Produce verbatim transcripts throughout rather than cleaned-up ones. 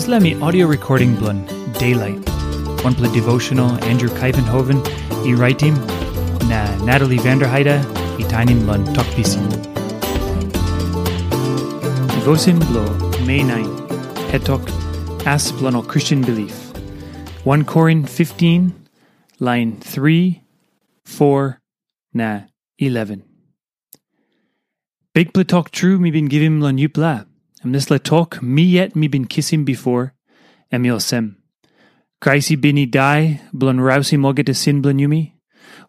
Dispela mi audio recording bilong Daylight, wanpela devotional Andrew Kaivenhoven i raitim, na Natalie Vanderheide i tainim long Tok Pisin. Devotion bilong Mei nine, hetok, As bilong ol Christian belief. One Korin fifteen, lain three, four, na eleven. Bikpela tok tru mi bin givim long yupela, em dispela tok mi yet mi bin kisim bipo, em i olsem. Krais i bin i dai bilong rausim olgeta sin bilong yumi,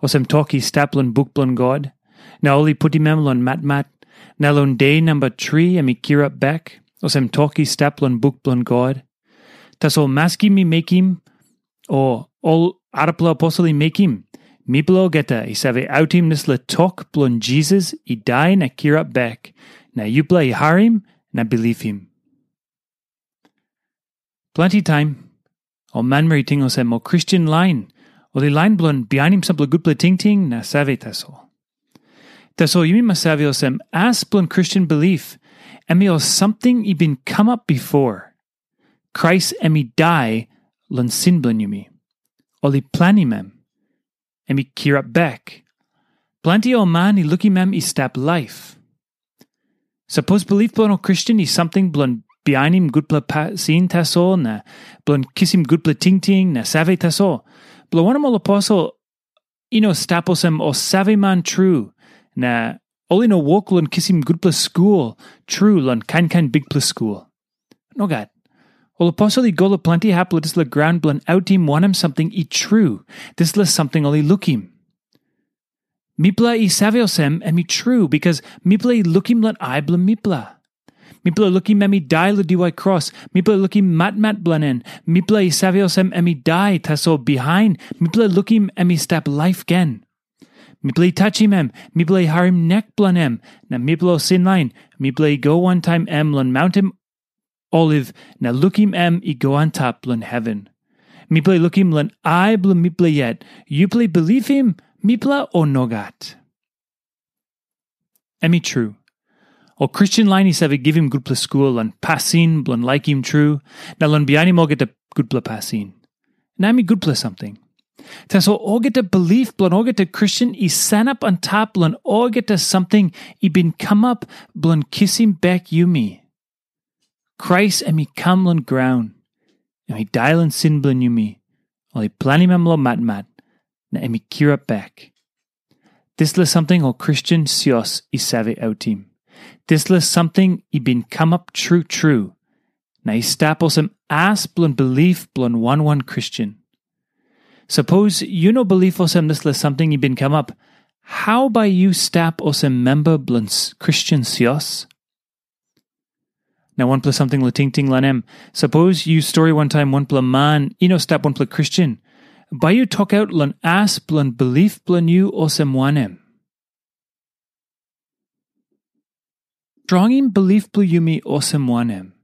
olsem tok i stap long buk bilong God, na ol i putim em long matmat, na long de namba tri em i kirap bek, olsem tok i stap long buk bilong God. Tasol maski mi mekim, o ol arapela aposel i mekim, mipela olgeta i save autim dispela tok bilong Jisas i dai na kirap bek, na yupela i harim na bilipim. Planti taim, ol manmeri i ting olsem ol Kristen lain, ol i lain bilong bihainim sampela gutpela tingting na save tasol. Tasol yumi mas save olsem, as bilong Kristen bilip, em i ol samting i bin kamap bipo. Krais em i dai long sin bilong yumi. Ol i planim em. Em i kirap bek. Planti ol man i lukim em i stap laip. Sapos bilip bilong ol Kristen i samting bilong bihainim gutpela pasin tasol na bilong kisim gutpela tingting na save tasol, bilong wanem ol aposel i no stap olsem ol saveman tru, na ol i no wok long kisim gutpela skul tru long kain kain bikpela skul. Nogat. Ol aposel i go long planti hap long dispela graun bilong autim wanem samting i tru, dispela samting ol i lukim. Mipela i save olsem em i tru, bikas mipela i lukim long ai bilong mipela. Mipela lukim em i dai long diwai kros, mipela lukim matmat bilong en, mipela i save olsem em i dai, tasol bihain mipela lukim em i stap laip gen. Mipela i tachim em, mipela i harim nek bilong em, na mipela ol sinlain, mipela i go wantaim em long maunten Oliv na lukim em i go antap long heven. Mipela i lukim long ai bilong mipela yet, yupela i bilipim mipela o nogat? Em i tru. Ol Kristen lain i save givim gutpela skul long pasin bilong laikim tru, na long bihainim olgeta gutpela pasin. Na em i gutpela samting. Tasol olgeta bilip bilong olgeta Kristen i sanap antap long olgeta samting i bin kamap bilong kisim bek yumi. Krais em i kam long graun, em i dai long sin bilong yumi, ol i planim em long matmat, na em i kirap bek. Dispela samting ol Kristen sios i save autim. Dispela samting i bin kamap tru tru, na i stap olsem as bilong bilip bilong wan wan Kristen. Sapos yu no bilip olsem dispela samting i bin kamap, hau bai yu stap olsem memba bilong Kristen sios? Na wanpela samting long tingting long em, sapos yu stori wantaim wanpela man i no stap wanpela Kristen, bai yu tokaut long as bilong bilip bilong yu olsem wanem? Strongim bilip bilong yumi olsem wanem?